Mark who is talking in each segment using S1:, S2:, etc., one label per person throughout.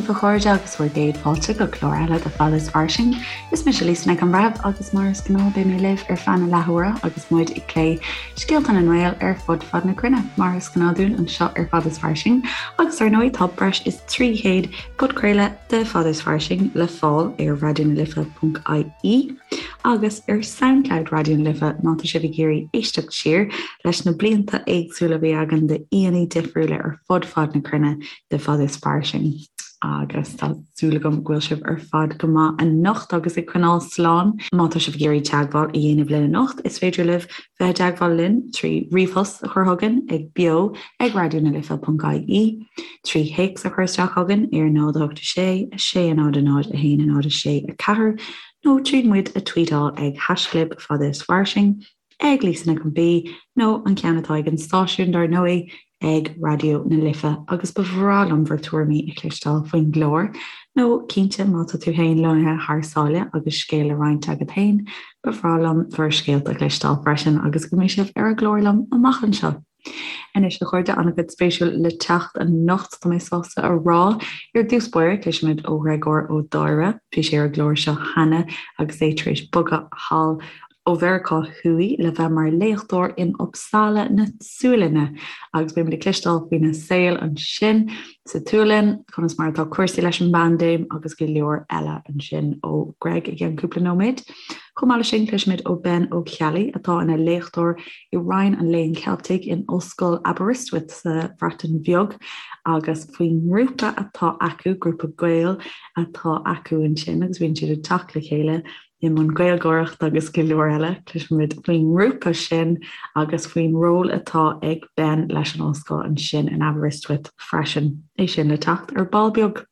S1: daoibh a chairde agus bhur gcéad fáilte go clár eile de Fada is Fairsing. Is mise Lisa Nic an Bhreithimh agus mar is gnáth beidh mé libh ar feadh na leathuaire agus muid ag plé scéalta na nGael ar fud fad na cruinne mar is gnáth dúinn anseo ar Fada is Fairsing agus ar ndóigh tá breis is 300 podchraoladh de Fada is Fairsing le fáil ar raidionalife.ie agus ar Soundcloud Raidió na Life má tá sibh ag iarraidh éisteacht siar leis na blianta éagsúla a bhí againn d'aíonna difriúla ar fud fad na cruinne de Fada is Fairsing. Agus tá súil agam go bhfuil sibh ar fad go maith anocht agus ag coinneáil slán. Má tá sibh ag iarraidh teagmháil a dhéanamh linn anocht, is féidir libh bheith i dteagmháil linn trí ríomhphost a chur chugainn ag beo ag raidionalife.ie, trí théacs a chur isteach chugainn ar 0 8 6 6 0 0 1 0 6 4 nó tríd muid a tweetáil ag haischlib fada is fairsing, ag Lisa Nic an B nó an ceann atá ag an stáisiún dar ndóigh, ag Raidió na Life agus ba bhreá liom bhur tuairimí a chloisteáil faoin gclár, nó cinnte má tá tú féin lonnaithe thar sáile agus scéal le roinnt agat féin, ba bhreá liom bhur scéalta a chloisteáil freisin agus go mbeidh sibh ar an gclár liom amach anseo. Anois a chairde, an-chuid spéisiúil le teacht anocht, tá mé sásta a rá. Ar dtús báire, cloisfimid ó Ghréagóir Ó Dáire. Bhí sé ar an gclár seo cheana agus é tar éis bogadh thall ó Mheiriceá Thuaidh le bheith mar léachtóir in Uppsala na Sualainne agus beimid ag cloisteáil faoina saol ansin sa tSualainn, conas mar atá cúrsaí leis an bpaindéim agus go leor eile ansin ó Greg i gceann cúpla nóiméad. Chomh maith leis sin, cloisfimid ó Ben Ó Ceallaigh atá ina léachtóir i Roinn an Léinn Cheiltigh in Ollscoil Aberystwyth sa Bhreatain Bheag agus faoin ngrúpa atá acu, grúpa Gael atá acu ansin agus bíonn siad ag teacht le chéile i mbun Gaeilgeoireachta agus go leor eile. Cloisfimid faoin ngrúpa sin agus faoin ról atá ag Ben leis an ollscoil ansin in Aberystwyth freisin. É sin le teacht ar ball beag.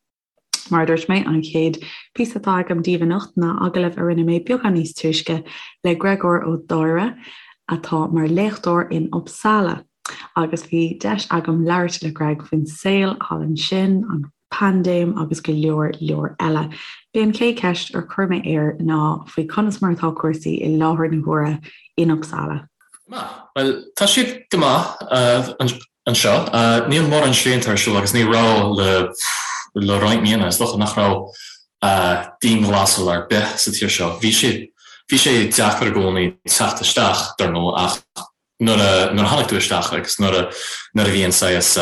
S1: Mar a dúirt mé, an chéad phíosa atá agam daoibh anocht ná agallamh a rinne mé beagán níos túisce le Gréagóir Ó Dáire atá mar léachtóir in Uppsala. Agus bhí deis agam labhairt le Greg faoin saol thall ansin, an paindéim agus go leor leor eile. B'é an chéad cheist ar chuir mé air ná faoi conas mar atá cúrsaí i láthair na huaire in Uppsala.
S2: Maith. Bhuel, tá siad go maith anseo. Níl mórán srianta ar siúl agus ní raibh le le roinnt míonna. Is dócha nach raibh dianghlasáil ar bith sa tír seo. Bhí sé bhí sé deacair i gcónaí teacht isteach, dar ndóigh, ach nuair a nuair a tháinig tú isteach agus nuair a nuair a bhí an saghas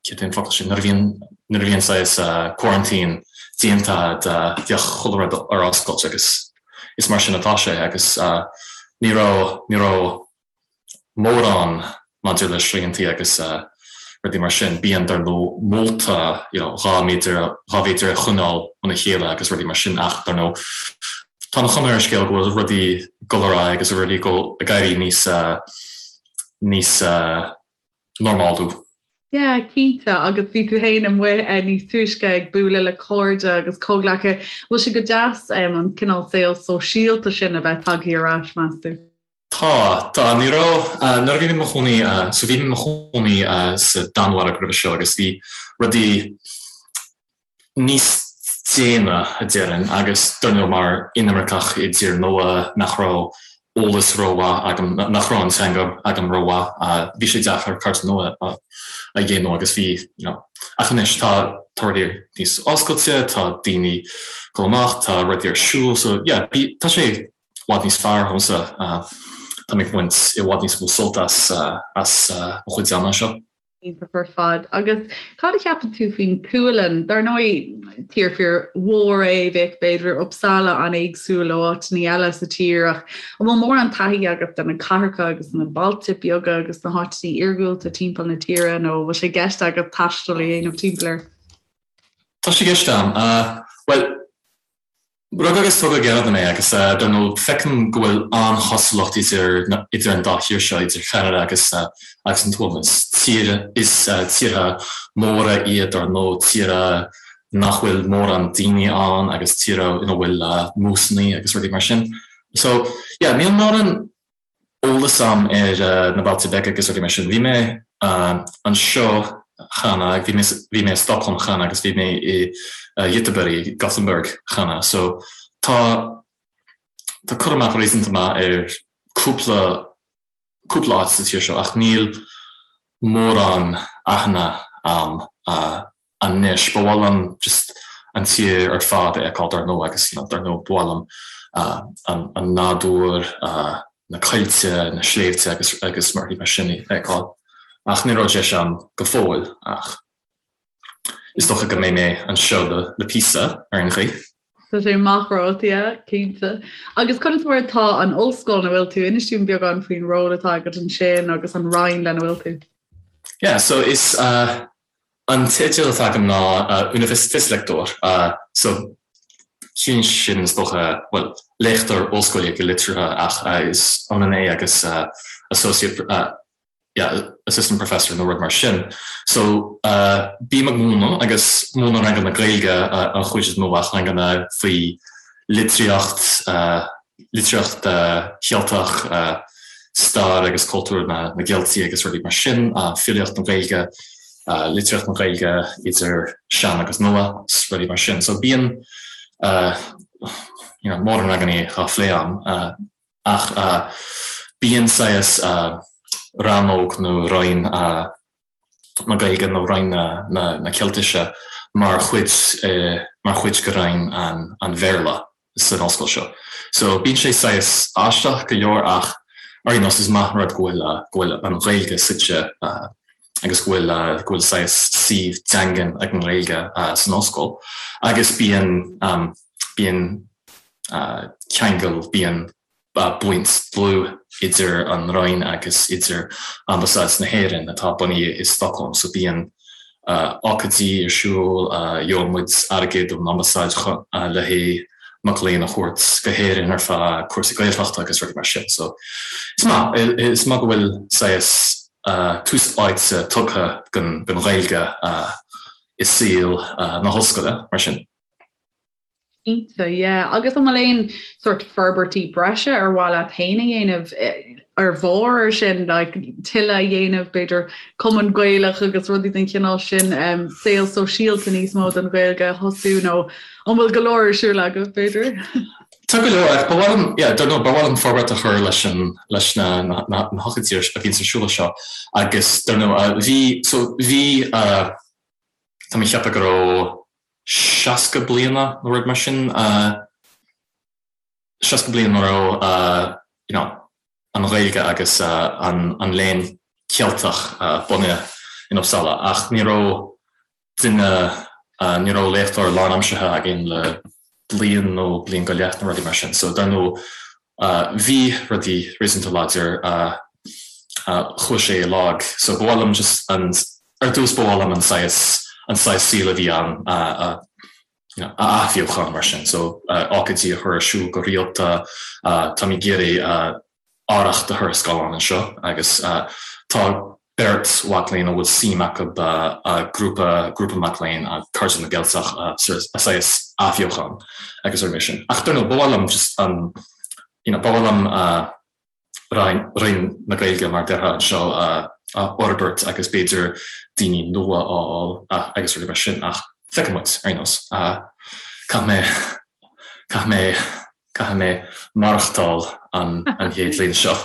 S2: céard é an focal sin nuair a bhíonn nuair a bhí an saghas quarantine déanta bheadh chuile rud ar oscailt agus is mar sin atá sé agus ní raibh ní raibh mórán maidir le sriantaí agus rudaí mar sin. Bíonn, dar ndóigh, molta you know 2 méadar 2 mhéadar a choinneáil óna chéile agus rudaí mar sin ach, dar ndóigh, tá an chuma ar an scéal go bhfuil rudaí ag dul ar aghaidh agus rudaí ag dul ag éirí níos níos normálú.
S3: Yeah, cinnte, agus bhí tú féin amuigh níos túisce ag bualadh le cairde agus comhghleacaithe. Bhfuil sé go deas an cineál saol sóisialta sin a bheith tagtha ar ais, meas tú?
S2: Tá, tá. Ní raibh, nuair a bhí mé i mo chónaí, so bhí mé i mo chónaí sa Danmhairg roimhe seo agus bhí rudaí níos déine, a déarfainn, agus dar ndóigh mar inimirceach i dtír nua nach raibh eolas rómhaith agam, nach raibh an teanga agam rómhaith, bhí sé deacair cairde nua a dhéanamh agus bhí, you know, ach anois tá, tá rudaí níos oscailte, tá daoine ag dul amach, tá rudaí ar siúl, so yeah, bhí, tá sé i bhfad níos fearr dhomsa. Tá mé ag baint i bhfad níos mó sult as as mo chuid ama anseo.
S3: Iontach ar fad. Agus cad a cheapann tú faoin tSualainn? Dar ndóigh, tír fíor mhór é, bheadh b'fhéidir Uppsala an-éagsúil ó áiteanna eile sa tír ach an bhfuil mórán taithí agat de na cathracha agus na bailte beaga agus na háiteanna iargúlta timpeall na tíre nó an bhfuil sé i gceist agat taisteal a dhéanamh timpeall air?
S2: Tá sé i gceist agam. Bhuel, Rugadh agus tógadh i gCeanada mé agus dar ndóigh feicim go bhfuil an-chosúlacht idir idir an dá thír seo, idir Cheanada agus agus an tSualainn. Is tír is tíortha móra iad dar ndóigh, tíortha nach bhfuil mórán daoine ann agus tíortha ina bhfuil músannaí agus rudaí mar sin. So yeah, níl mórán eolas agam ar na bailte beaga agus rudaí mar sin. Bhí mé anseo cheana, bhí mé bhí mé i Stockholm cheana agus bhí mé i Göteborg, Gothenburg cheana. So tá tá cur amach réasúnta maith ar cúpla cúpla áit sa tír seo ach níl mórán aithne agam. anois. Ba mhaith liom just an tír ar fad a fheiceáil dar ndóigh agus you know dar ndóigh ba mhaith liom an nádúr, na coillte, na sléibhte agus agus rudaí mar sin a fheiceáil. Ach ní raibh deis agam go fóill ach is dócha go mbeidh mé anseo le le píosa ar aon chaoi.
S3: Tá sé amach romhat, yeah, cinnte. Agus conas mar atá an ollscoil ina bhfuil tú? Inis dúinn beagán faoin ról atá agat ansin agus an roinn lena bhfuil tú.
S2: Yeah, so is uh, An teideal atá agam ná Universitetslektor, so ciallaíonn sin is dócha, bhuel, léachtóir ollscoile go liteartha ach is ionann é agus associate, yeah, assistant professor nó rud mar sin. So bím ag múineadh agus múinim ranganna Gaeilge an chuid is mó ach ranganna faoi litríocht, litríocht Cheilteach, stair agus cultúr na gCeiltigh agus rudaí mar sin, filíocht na Gaeilge, litríocht na Gaeilge idir sean agus nua, rudaí mar sin. So bíonn you know mórán ranganna á phlé agam ach bíonn saghas rannóg nó roinn na Gaeilge nó Roinn na Ceiltise mar chuid mar chuid de Roinn an Bhéarla san ollscoil seo. So bíonn sé saghas aisteach go leor ach ar aon nós is maith an rud go bhfuil go bhfuil an Ghaeilge suite agus go bhfuil go bhfuil saghas suíomh daingean ag an nGaeilge san ollscoil agus bíonn bíonn ceangal bíonn baint dlúth idir an Roinn agus idir Ambasáid na hÉireann atá bunaithe i Stockholm so bíonn ócáidí ar siúl, gheobhaidh muid airgead ón Ambasáid le haghaidh mac léinn a thabhairt go hÉirinn ar feadh cúrsaí Gaeltachta agus rudaí mar sin so is maith, is maith go bhfuil saghas tús áite tugtha don Ghaeilge i saol na hollscoile mar sin.
S3: Cinnte, yeah. Agus an bhfuil aon sort forbairtí breise ar mhaith leat féin a dhéanamh ar bharr ar sin, like tuilleadh a dhéanamh, b'fhéidir cumann Gaelach agus rudaí den chineál sin, um, saol sóisialta níos mó don Ghaeilge a thosú nó an bhfuil go leor ar siúl agat, b'fhéidir?
S2: Tá go leor, ach ba mhaith liom, yeah, dar ndóigh, ba mhaith liom forbairt a chur leis an, leis na, na, na, na hócáidí a bhíonns ar siúl anseo agus dar ndóigh, bhí, so bhí, uh, tá mé ag ceapadh go raibh 60 bliana nó rud mar sin, 60 bliain a raibh you know an Ghaeilge agus an léann Ceilteach bunaithe in Uppsala ach ní raibh duine, ní raibh léachtóir lánaimseartha againn le bliain nó bliain go leith nó rudaí mar sin so dar ndóigh bhí rudaí réasúnta láidir chuaigh sé i lag so ba mhaith liom just an Ar dtús ba mhaith liom an saghas, an saghas saoil a bhí ann a, a, you know, a athbheochan mar sin. So ócáidí a chur ar siúl go rialta, táim ag iarraidh arracht a chur ar scáileán anseo agus tá beirt mhac léinn a bhfuil suim acu grúpa, grúpa mac léinn, Cairde na gCeilteach a saghas athbheochan agus rudaí mar sin. Ach dar ndóigh ba mhaith liom just an, you know, ba mhaith liom Roinn na Gaeilge mar a déarfá anseo a fhorbairt agus b'fhéidir daoine nua a fháil agus rudaí mar sin ach feicfidh muid ar aon nós. Caithfidh mé, caithfidh mé, caithfidh mé maireachtáil an chéad bhliain seo.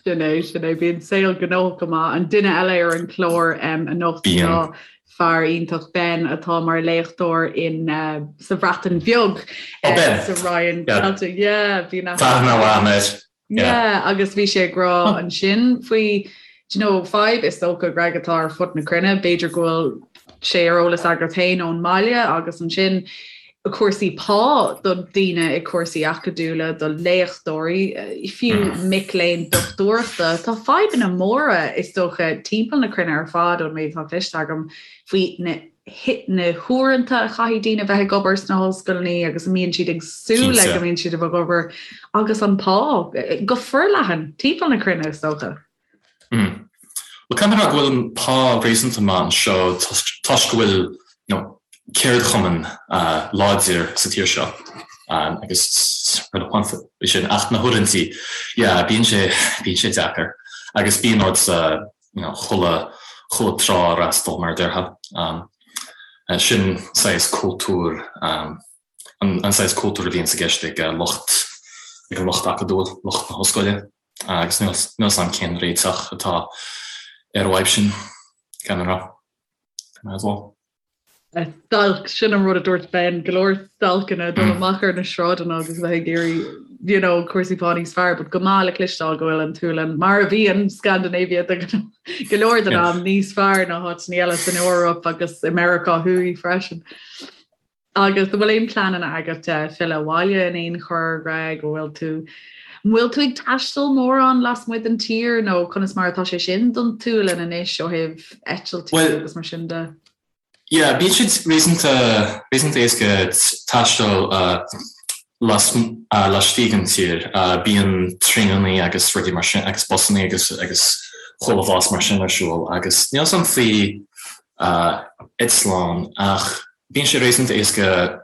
S3: Sin é, sin é. Bíonn saol gnóthach go maith. An duine eile ar an chlár anocht ná fear iontach Ben atá mar léachtóir in sa Bhreatain Bheag sa Roinn Ceilteach. Yeah, bíonn
S2: Tá aithne mhaith air.
S3: Yeah, agus bhí sé ag rá ansin faoi, do you know, fadhb is dócha, Greg, atá ar fud na cruinne, b'fhéidir go bhfuil sé ar eolas agat féin ón mbaile agus ansin cúrsaí pá do daoine i cúrsaí acadúla, do léachtóirí, fiú mm. mic léinn dochtúireachta. Tá fadhbanna móra is dócha timpeall na cruinne ar fad ón méid atá cloiste agam faoi na na huaireanta a chaithfidh daoine bheith ag obair sna hollscoileanna agus a mbíonn siad ag súil le go mbíonn siad ag obair agus an pá go forleathan timpeall na cruinne is dócha.
S2: Mm. Well caithfidh mé a rá go bhfuil an pá réasúnta maith anseo toisc go bhfuil you know, ceardchumann uh, láidir sa tír seo um, agus rud amháin faoi sin ach na huaireanta yeah, bíonn sé bíonn sé deacair agus bíonn ort uh, you know, chuile, chuile trá a fhreastal mar a déarfá. Sin saghas cultúr, an saghas cultúr a bhíonns i gceist ag lucht, ag an lucht acadúil, lucht na hollscoile agus níl 'fhios a'm cén réiteach atá ar an bhfadhb sin, gan a rá. Might as well.
S3: Stailc, sin an rud a dúirt Ben, go leor stailceanna dul amach ar na sráideanna agus bheith ag iarraidh you know, cúrsaí pá níos fearr, but go maith le cloisteáil go bhfuil an tSualainn, mar a bhíonn Scandinavia de go leor den am níos fearr ná háiteanna eile san Eoraip agus i Meiriceá Thuaidh freisin. Agus an bhfuil aon pleananna agat filleadh abhaile in aon chor, Greg, an bhfuil tú an bhfuil tú ag taisteal mórán lasmuigh den tír nó conas mar atá sé sin don tSualainn anois ó thaobh eitiltí agus mar sin de?
S2: Yeah, bíonn sé réasúnta réasúnta éasca taisteal las laistigh den tír. Bíonn traenannaí agus rudaí mar sin agus busannaí agus agus chuile bhlas mar sin ar siúl agus níl 's a'm faoi eitleán ach Bíonn sé réasúnta éasca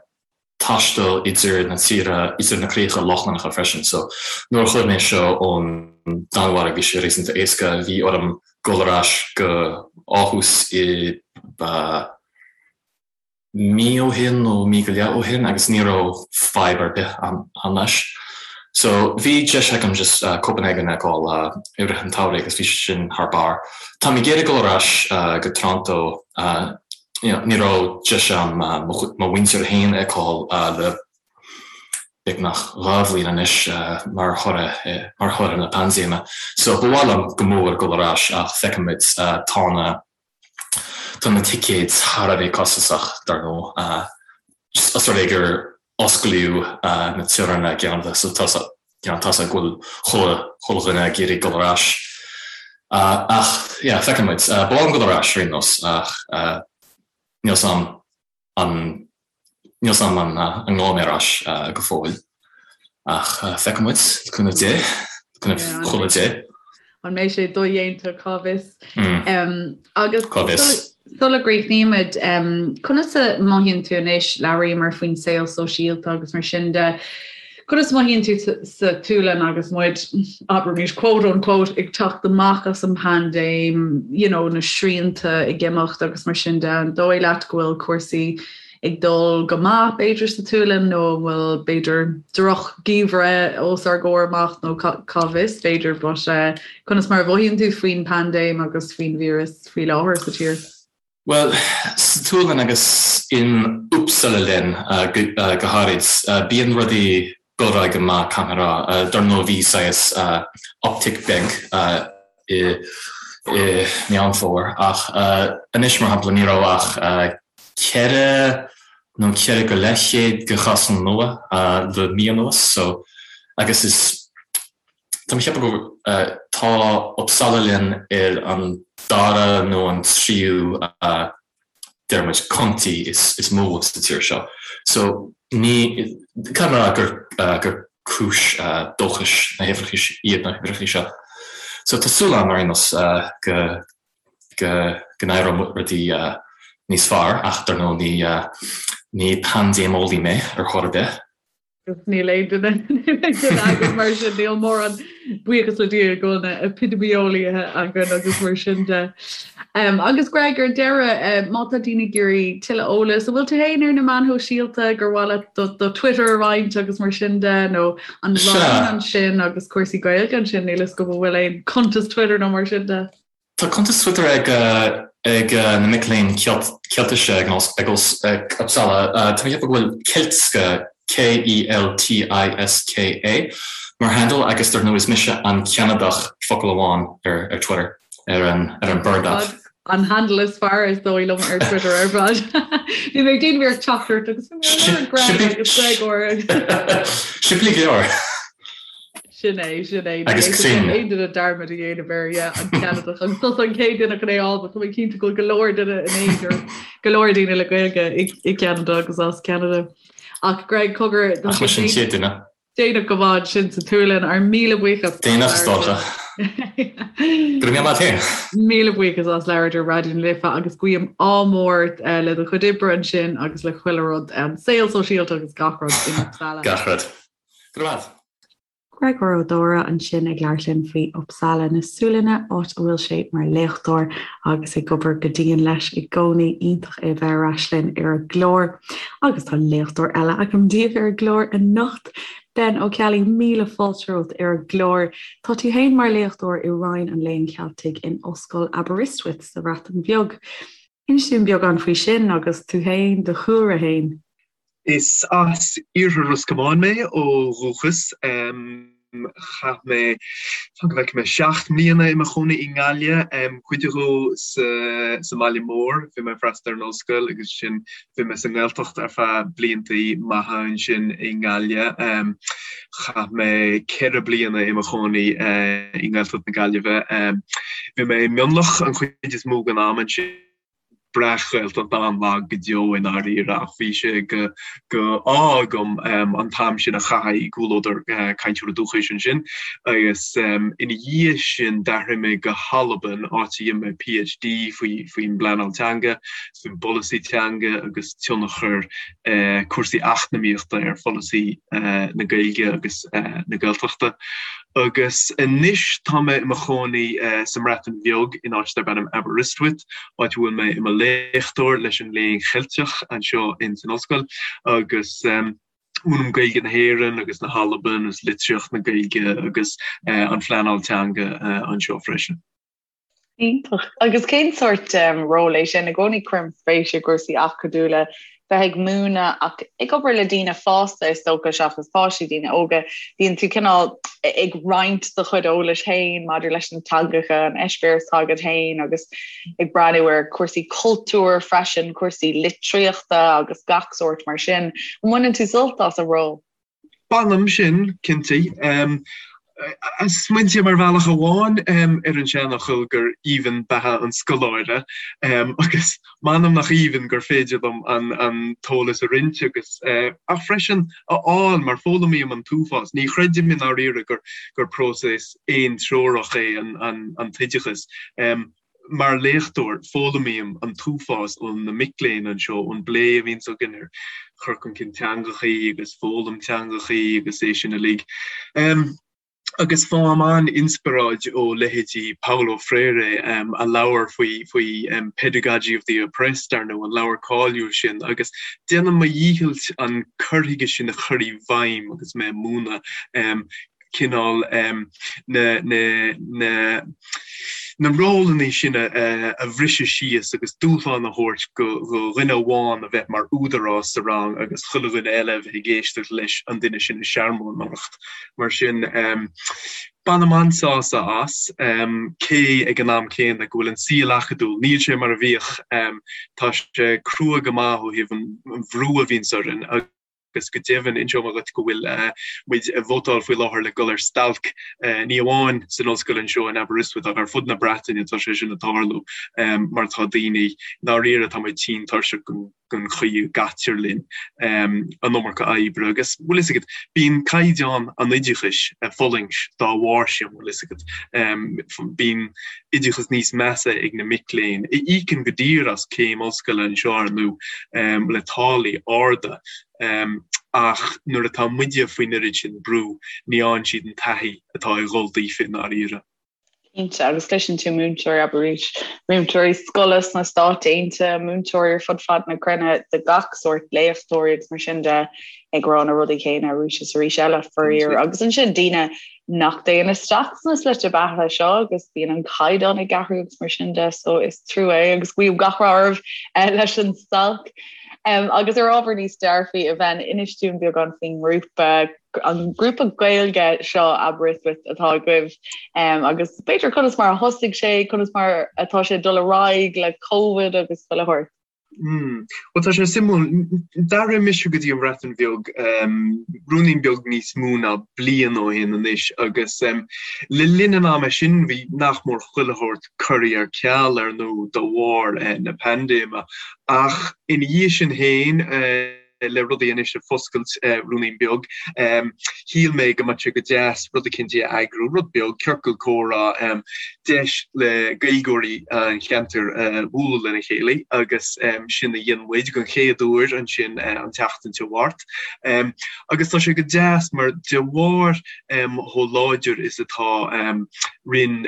S2: taisteal idir na tíortha, idir na críocha Lochlannacha freisin. So, nuair a chuaigh mé seo ón Danmhairg bhí sé réasúnta éasca. Bhí orm dul ar ais go Aarhus i mí ó shin nó mí go leith ó shin agus ní raibh fadhb ar bith ann leis. So, bhí deis agam just Copenhagen a fheiceáil i rith an tsamhraidh agus bhí sé sin thar barr. Táim ag iarraidh dul ar ais go Toronto Ní raibh deis agam mo mhuintir féin a fheiceáil le beagnach 2 bhliain anois mar thoradh mar thoradh na paindéime. So ba mhaith liom go mór dul ar ais ach feicfimid. Tá na tá na ticéid thar a bheith costasach dar ndóigh. Os rud é gur osclaíodh na teorainneacha i gCeanada so tá you know tá 's ag go bhfuil chuile dhuine ag iarraidh dul ar ais. Ach yeah feicfidh muid. Ba mhaith liom dul ar ais ar aon nós ach níl 's a'm an níl 's a'm an an ngabhfaidh mé ar ais go fóill. Ach feicfidh muid, le cúnamh Dé, le cúnamh chuile Dé.
S3: An mbeidh sé dodhéanta, cá bhfios? Agus Cá bhfios? sula gcríochnaímid, conas a mothaíonn tú anois, labhraíomar faoin saol sóisialta agus mar sin de, conas a mothaíonn tú sa tSualainn agus muid, abraimis, quote unquote, ag teacht amach as an bpaindéim, you know, na srianta ag imeacht agus mar sin de, an dóigh leat go bhfuil cúrsaí ag dul go maith, b'fhéidir, sa tSualainn nó an bhfuil, b'fhéidir, droch-gheimhreadh os ár gcomhair amach nó cá bhfios, b'fhéidir, but conas mar a mhothaíonn tú faoin bpaindéim agus faoin víreas faoi láthair sa tír?
S2: Bhuel, sa tSualainn agus in Uppsala län go háirid, bíonn rudaí dul ar aghaidh go maith, caithfidh mé a rá. Dar ndóigh bhí saghas uptick beag i Meán Fómhair ach anois, mar shampla, ní raibh ach 4 nó 4 go leith chéad de chásanna nua le mí anuas so agus is tá mé ag ceapadh go tá Uppsala län ar an dara nó an tríú deir muid, county is mó sa tír seo. So ní, caithfidh mé a rá gur, gur cúis dóchais na huimhreacha, iad na huimhreacha seo. So tá súil agam ar aon nós go, go, go n-éireoidh rudaí níos fearr ach dar ndóigh ní, ní paindéimeolaí mé ar chor ar bith.
S3: Agus níl aon duine againn mar sin, níl mórán buíochas le Dia go bhfuil na epidemiolaithe againn agus mar sin de. Um, agus Greg ar deireadh, uh, má tá daoine ag iarraidh tuilleadh eolais, an bhfuil tú féin ar na meáin shóisialta gur mhaith leat do, do Twitter a roinnt agus mar sin de, nó an Roinn ansin agus cúrsaí Gaeilge ansin, níl fhios agam an bhfuil aon cuntas Twitter nó mar sin de.
S2: Tá cuntas Twitter ag ag na mic léinn Ceiltise ag Uppsala. Tá mé ag ceapadh go bhfuil Keltiska, K-E-L-T-I-S-K-A, mar handle agus dar ndóigh is mise an Ceanadach, focal amháin, ar Twitter, ar an ar an Bird app.
S3: An handle is fearr is dóigh liom ar Twitter ar fad. Bhí mé ag déanamh iarracht teacht ort agus bhí mé ar Greg agus Gregor.
S2: Simplí go leor.
S3: Sin é, sin é.
S2: Agus cruinn.
S3: Aon duine dearmad a dhéanamh air, yeah, an Ceanadach. Agus tusa an chéad duine chun é a fháil, but tá mé cinnte go bhfuil go leor duine in aon go leor daoine le Gaeilge i i gCeanada agus as Ceanada. Ach Greg, cogar,
S2: tá Ach sé mise an chéad duine.
S3: déanach go maith ansin sa tSualainn, ár míle buíochas
S2: as Déanach is dócha. Go raibh míle maith agat féin.
S3: Míle buíochas as labhairt ar Raidió na Life agus guím ádh mór le do chuid oibre ansin agus le chuile rud, an saol sóisialta agus gach rud in Uppsala.
S2: Gach rud. Go raibh maith.
S1: Gregor Ó Dóra ansin ag labhairt linn faoi Uppsala na Sualainne, áit a bhfuil sé mar léachtóir agus ag obair go dian leis i gcónaí. Iontach é a bheith ar ais linn ar an gclár. Agus tá léachtóir eile agam daoibh ar an gclár anocht, Ben Ó Ceallaigh, míle fáilte romhat ar an gclár. Tá tú féin mar léachtóir i Roinn an Léinn Cheiltigh in Ollscoil Aberystwyth sa Bhreatain Bheag. Inis dúinn beagán faoi sin agus tú féin, do chúlra féin.
S4: Is as iarthar Ros Comáin mé ó dhúchas. Chaith mé, fan go bhfeicfidh mé, 7 mbliana i mo chónaí i nGaillimh, cuid dhó sa sa mbaile mór, bhí mé ag freastal ar an ollscoil agus ansin bhí mé sa nGaeltacht ar feadh bliantaí maithe ansin i nGaillimh. Chaith mé 4 bliana i mo chónaí i nGaeltacht na Gaillimhe. Bhí mé i Mionlach an chuid is mó den am ansin. Breac-Ghaeltacht an-lag go deo i ndáiríre ach bhí sé go go ádh agam an t-am sin a chaitheamh i gcomhluadar cainteoirí dúchais ansin agus ina dhiaidh sin d'athraigh mé go hAlbain áit a dhein mé PhD faoi faoin bpleanáil teanga, faoin bpolasaí teanga agus tionchar cúrsaí eacnamaíochta ar pholasaí na Gaeilge agus na Gaeltachta. Agus anois tá mé i mo chónaí sa mBreatain Bheag in áit darb ainm Aberystwyth, áit a bhfuil mé i mo léachtóir leis an Léann Cheilteach anseo in san ollscoil agus múinim Gaeilge na hÉireann agus na hAlban agus litríocht na Gaeilge agus an phleanáil teanga anseo freisin.
S3: Iontach. Agus cén sórt ról é sin? I gcónaí cuirim spéis i gcúrsaí acadúla, bheith ag múineadh ach ag obair le daoine fásta is dócha seachas páistí, daoine óga. Bíonn tú cineál ag roinnt do chuid eolais féin maidir leis na teangacha, an eispéireas atá agat féin agus ag breathnú ar chúrsaí cultúir freisin, cúrsaí litríochta agus gach sórt mar sin. An mbaineann tú sult as an ról?
S4: Bainim sin, cinnte. Smaointím ar bhealach amháin ar an seanfhocal gur aoibhinn beatha an scoláire agus m'anam nach aoibhinn gur féidir liom an t-eolas a roinnt agus ach freisin a fháil mar foghlaimím an t-uafás. Ní chreidim i ndáiríre gur próiseas aontreorach é an t-oideachas. Mar léachtóir, foghlaimím an t-uafás ó na mic léinn anseo, ón bplé a bhíonns againn ar chur chun cinn teangachaí agus foghlaim teangachaí agus é sin uilig. Agus faighim an-inspioráid ó leithéidí Paulo Freire, a leabhar faoi faoi Pedagogy of the Oppressed, ar ndóigh, an leabhar cáiliúil sin, agus déanaim mo dhícheall an cur chuige sin a chur i bhfeidhm agus mé ag múineadh. cineál na na na rólanna sin a bhriseadh síos agus dúshlán a thabhairt go dhuine amháin a bheith mar údarás sa rang agus chuile dhuine eile a bheith ag éisteacht leis an duine sin ag searmónaireacht. Mar sin, bainim an-sásamh as, cé ag an am céanna go bhfuil an saol acadúil, níl sé mar a bhíodh, tá sé crua go maith ó thaobh an bhrú a bhíonns orainn agus go deimhin, inseoidh mé dhuit go bhfuil muid ag vótáil faoi láthair le dul ar stailc, ní amháin san ollscoil anseo in Aberystwyth ach ar fud na Breataine tá sé sin ag tarlú mar tá daoine, i ndáiríre tá muid tinn tuirseach den chaoi a gcaitear linn, an iomarca oibre agus, bhfuil fhios agat, bíonn caighdeán an oideachais ag fulaingt dá bharr sin, bhfuil fhios agat, bíonn oideachas níos measa ag na mic léinn, a íocann go daor as céim ollscoile anseo ar ndóigh, le táillí arda, ach nuair atá muide faoin oiread sin brú, ní fhaigheann siad an taithí atá ag dhul daofa i ndáiríre.
S3: Cinnte, agus cloiseann tú múinteoirí, abair arís, múinteoirí scoile sna Stáit Aontaithe, múinteoirí ar fud fad na cruinne de gach sórt, léachtóirí agus mar sin de, ag rá na rudaí céanna arís is arís eile, faraor. Agus ansin daoine nach dtéann isteach sna slite beatha seo agus bíonn an caighdeán ag athrú agus mar sin de so is trua é agus guím gach rath oraibh leis an stailc. Um, agus ar ábhar níos dearfaí a Ben, inis dúinn beagán faoin ngrúpa an grúpa Gaeilge seo Aberystwyth atá agaibh um, agus b'fhéidir conas mar a thosaigh sé, conas mar atá sé dul ar aghaidh le Covid agus chuile shórt.
S4: Mm. Bhuel tá sé suimiúil, d'athraigh mise go dtí an Bhreatain Bheag ruainnín beag níos mó ná bliain ó shin anois agus le linn an ama sin bhí nach mór chuile shórt curtha ar ceal ar ndóigh de bharr na paindéime ach ina dhiaidh sin féin le rudaí anois ag foscailt ruainnín beag. Shíl mé go mbeadh sé go deas rud eicínt a eagrú, rud beag, ciorcal comhrá, deis le Gaeilgeoirí an cheantair bualadh lena chéile agus sin a dhein muid den chéad uair ansin an tseachtain seo thart. Agus tá sé go deas mar de bharr chomh láidir is atá Roinn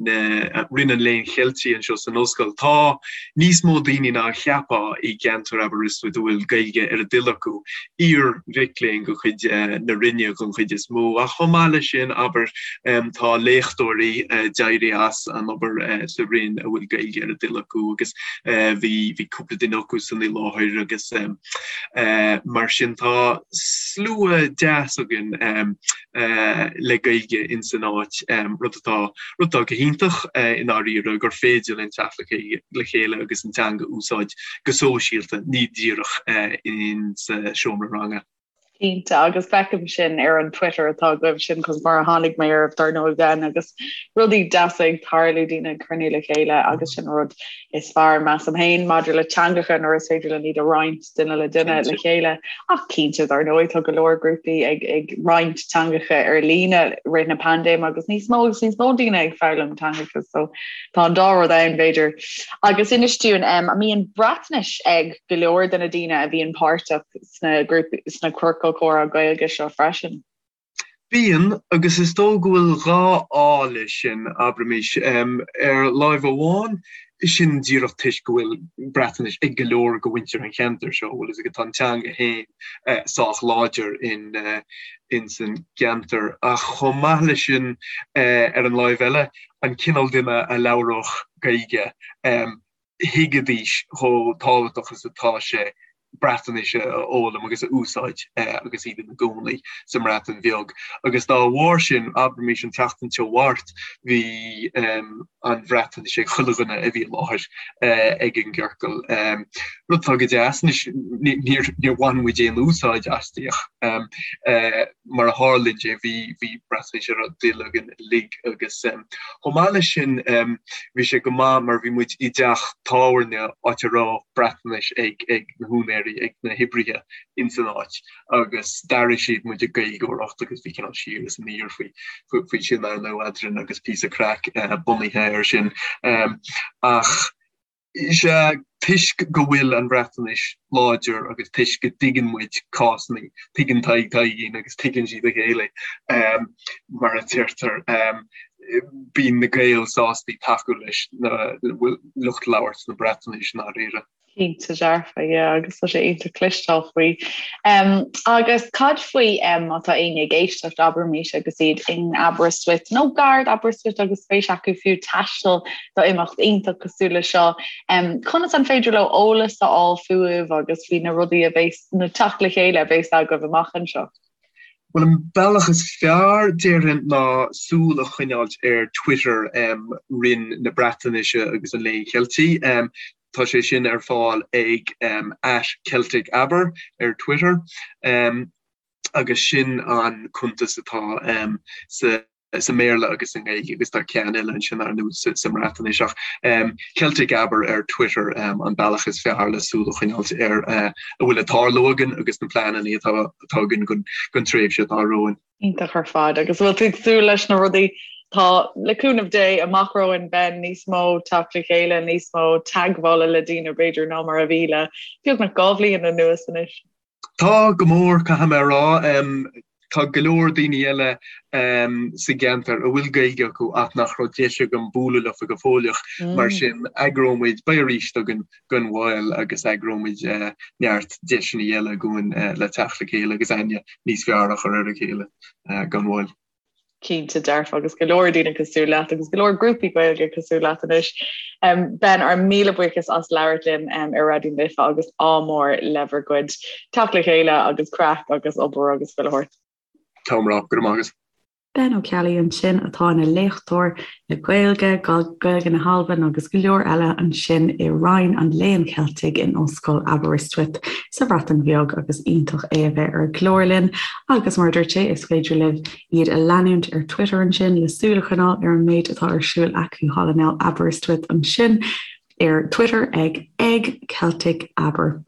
S4: na Roinn an Léinn Cheiltigh anseo san ollscoil. Tá níos mó daoine ná a cheapfá i gceantar Aberystwyth a bhfuil Gaeilge ar. ar a dtoil acu, iar-mhic léinn de chuid na Roinne den chuid is mó, ach chomh maith leis sin, abair, tá léachtóirí a d'éirigh as an obair sa Roinn a bhfuil Gaeilge ar a dtoil acu agus bhí bhí cúpla duine acu san i láthair agus mar sin tá slua deas againn le Gaeilge in san áit, rud atá rud atá go hiontach i ndáiríre gur féidir linn teacht le chéile agus an teanga a úsáid go sóisialta, ní díreach in sa seomra ranga.
S3: Cinnte, agus feicim sin ar an Twitter atá agaibh, sin conas mar a tháinig mé oraibh dar ndóigh Ben, agus rudaí deasa ag tarlú, daoine ag cruinniú le chéile agus sin rud is fearr measaim féin maidir le teangacha nuair is féidir linn iad a roinnt duine le duine le chéile. Ach cinnte dar ndóigh tá go leor grúpaí ag ag roinnt teangacha ar líne rith na paindéime agus níos mó agus níos mó daoine ag foghlaim teangacha so tá an dá rud ann b'fhéidir. Agus inis dúinn um, an mbíonn Breatnais ag go leor de na daoine a bhíonn páirteach sna grúpaí, sna ciorcail comhrá Gaeilge seo freisin.
S4: Bíonn, agus is dóigh go bhfuil 2 fháth leis sin, abraimis. Ar láimh amháin, sin díreach toisc go bhfuil Breatnais ag go leor de mhuintir an cheantair seo, bhfuil fhios agat, tá an teanga féin sách láidir in ins an gceantar. Ach chomh maith leis sin, ar an láimh eile, an cineál duine a labhródh Gaeilge, thuigfidís chomh tábhachtach is atá sé Breatnais a fhoghlaim agus a úsáid agus iad ina gcónaí sa mBreatain Bheag. Agus dá bharr sin, abraimis an tseachtain seo thart, bhí an Bhreatnais ag chuile dhuine a bhí i láthair ag an gciorcal. Rud atá go deas. Anois, níor bhain muid aon úsáid aisti ach mar a tharlaíonn sé, bhí Breatnais ar ár dtoil againn uilig agus chomh maith leis sin bhí sé go maith mar bhí muid i dteach tábhairne áit a raibh Breatnais ag ag na húinéirí, ag na hoibrithe ins an áit agus d'airigh siad muid ag Gaeilgeoireacht agus bhí cineál siar is aniar faoi faoi sin ar ndóigh eadrainn agus píosa craic bunaithe air sin. Ach Sea, toisc go bhfuil an Bhreatnais láidir agus toisc go dtuigeann muid cásanna, tuigeann Tadhg Taidhgín agus tuigeann siad a chéile, mar a deirtear, bíonn na Gaeil sásta tacú leis na lucht labhairt na Breatnaise i ndáiríre.
S3: Cinnte dearfa, yeah, agus tá sé iontach cloisteáil faoi. Agus cad faoi má tá éinne ag éisteacht, abraimis, agus iad in Aberystwyth nó gar d'Aberystwyth agus spéis acu fiú taisteal do imeacht iontach cosúil le seo. Conas an féidir leo eolas a fháil fúibh agus faoi na rudaí a bheas, na teacht le chéile a bheas agaibh amach anseo?
S4: Bhuel, an bealach is fearr, déarfainn, ná súil a choinneáilt ar Twitter Roinn na Breatnaise agus an Léinn Cheiltigh. Tá sé sin ar fáil ag @CelticAber ar Twitter agus sin an cuntas atá sa sa mBéarla agus sa nGaeilge agus tá ceann eile ansin ar ndóigh sa mBreatnais ach Celtic Aber ar Twitter an bealach is fearr le súil a choinneáilt ar a bhfuil ag tarlú againn agus na pleananna atá againn don tréimhse atá romhainn.
S3: Iontach ar fad agus bhfuil tú ag súil leis na rudaí tá le cúnamh Dé amach romhainn Ben níos mó teacht le chéile, níos mó teagmhála le daoine b'fhéidir ná mar a bhí le beagnach 2 bhliain anuas anois.
S4: Tá, go mór, caithfidh mé a rá. Tá go leor daoine eile sa gceantar a bhfuil Gaeilge acu ach nach raibh deis agam bualadh leofa go fóilleach. Mar sin, eagróidh muid, beidh arís againn gan mhoill agus eagróidh muid neart deiseanna eile dhúinn le teacht le chéile agus aithne níos fearr a chur ar a chéile gan mhoill.
S3: Cinnte dearfa agus go leor daoine cosúil leat agus go leor grúpaí Gaeilge cosúil leat anois. Ben, ár míle buíochas as labhairt linn ar Raidió na Life agus ádh mór le bhur gcuid teacht le chéile agus craic agus obair agus chuile shórt.
S4: Tá mé, go raibh maith agat.
S1: Ben Ó Ceallaigh ansin atá ina léachtóir le Gaeilge, Gaeilge na hAlban agus go leor eile ansin i Roinn an Léinn Cheiltigh in Ollscoil Aberystwyth sa Bhreatain Bheag agus iontach é a bheith ar an gclár linn agus mar a dúirt sé is féidir libh iad a leanúint ar Twitter ansin le súil a choinneáil ar an méid atá ar siúl acu thall in Aberystwyth ansin ar Twitter ag ag Celtic Aber.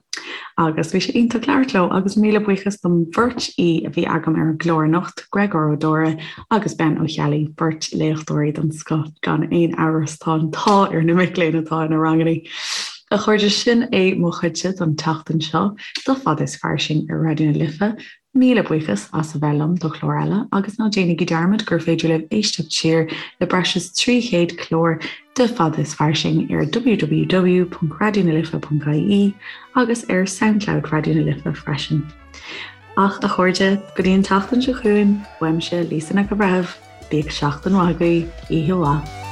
S1: Agus bhí sé iontach labhairt leo agus míle buíochas don bheirt aoi a bhí agam ar an gclár anocht, Gréagóir Ó Dóra agus Ben Ó Ceallaigh, beirt léachtóirí den scoth gan aon amhras tá an t-ádh ar na mic léinn atá ina ranganna. A chairde, sin é mo chuidse don tseachtain seo, do Fada is Fairsing ar Raidió na Life. Míle buíochas as a bheith liom do chlár eile agus ná déanaigí dearmad gur féidir libh éisteacht siar le breis is 300 clár de Fada is Fairsing ar www.raidionalife.ie agus ar Soundcloud Raidió na Life freisin. Ach a chairde, go dtí an tseachtain seo chugainn, uaimse Lisa Nic an Bhreithimh, bíodh seachtain mhaith agaibh, oíche mhaith.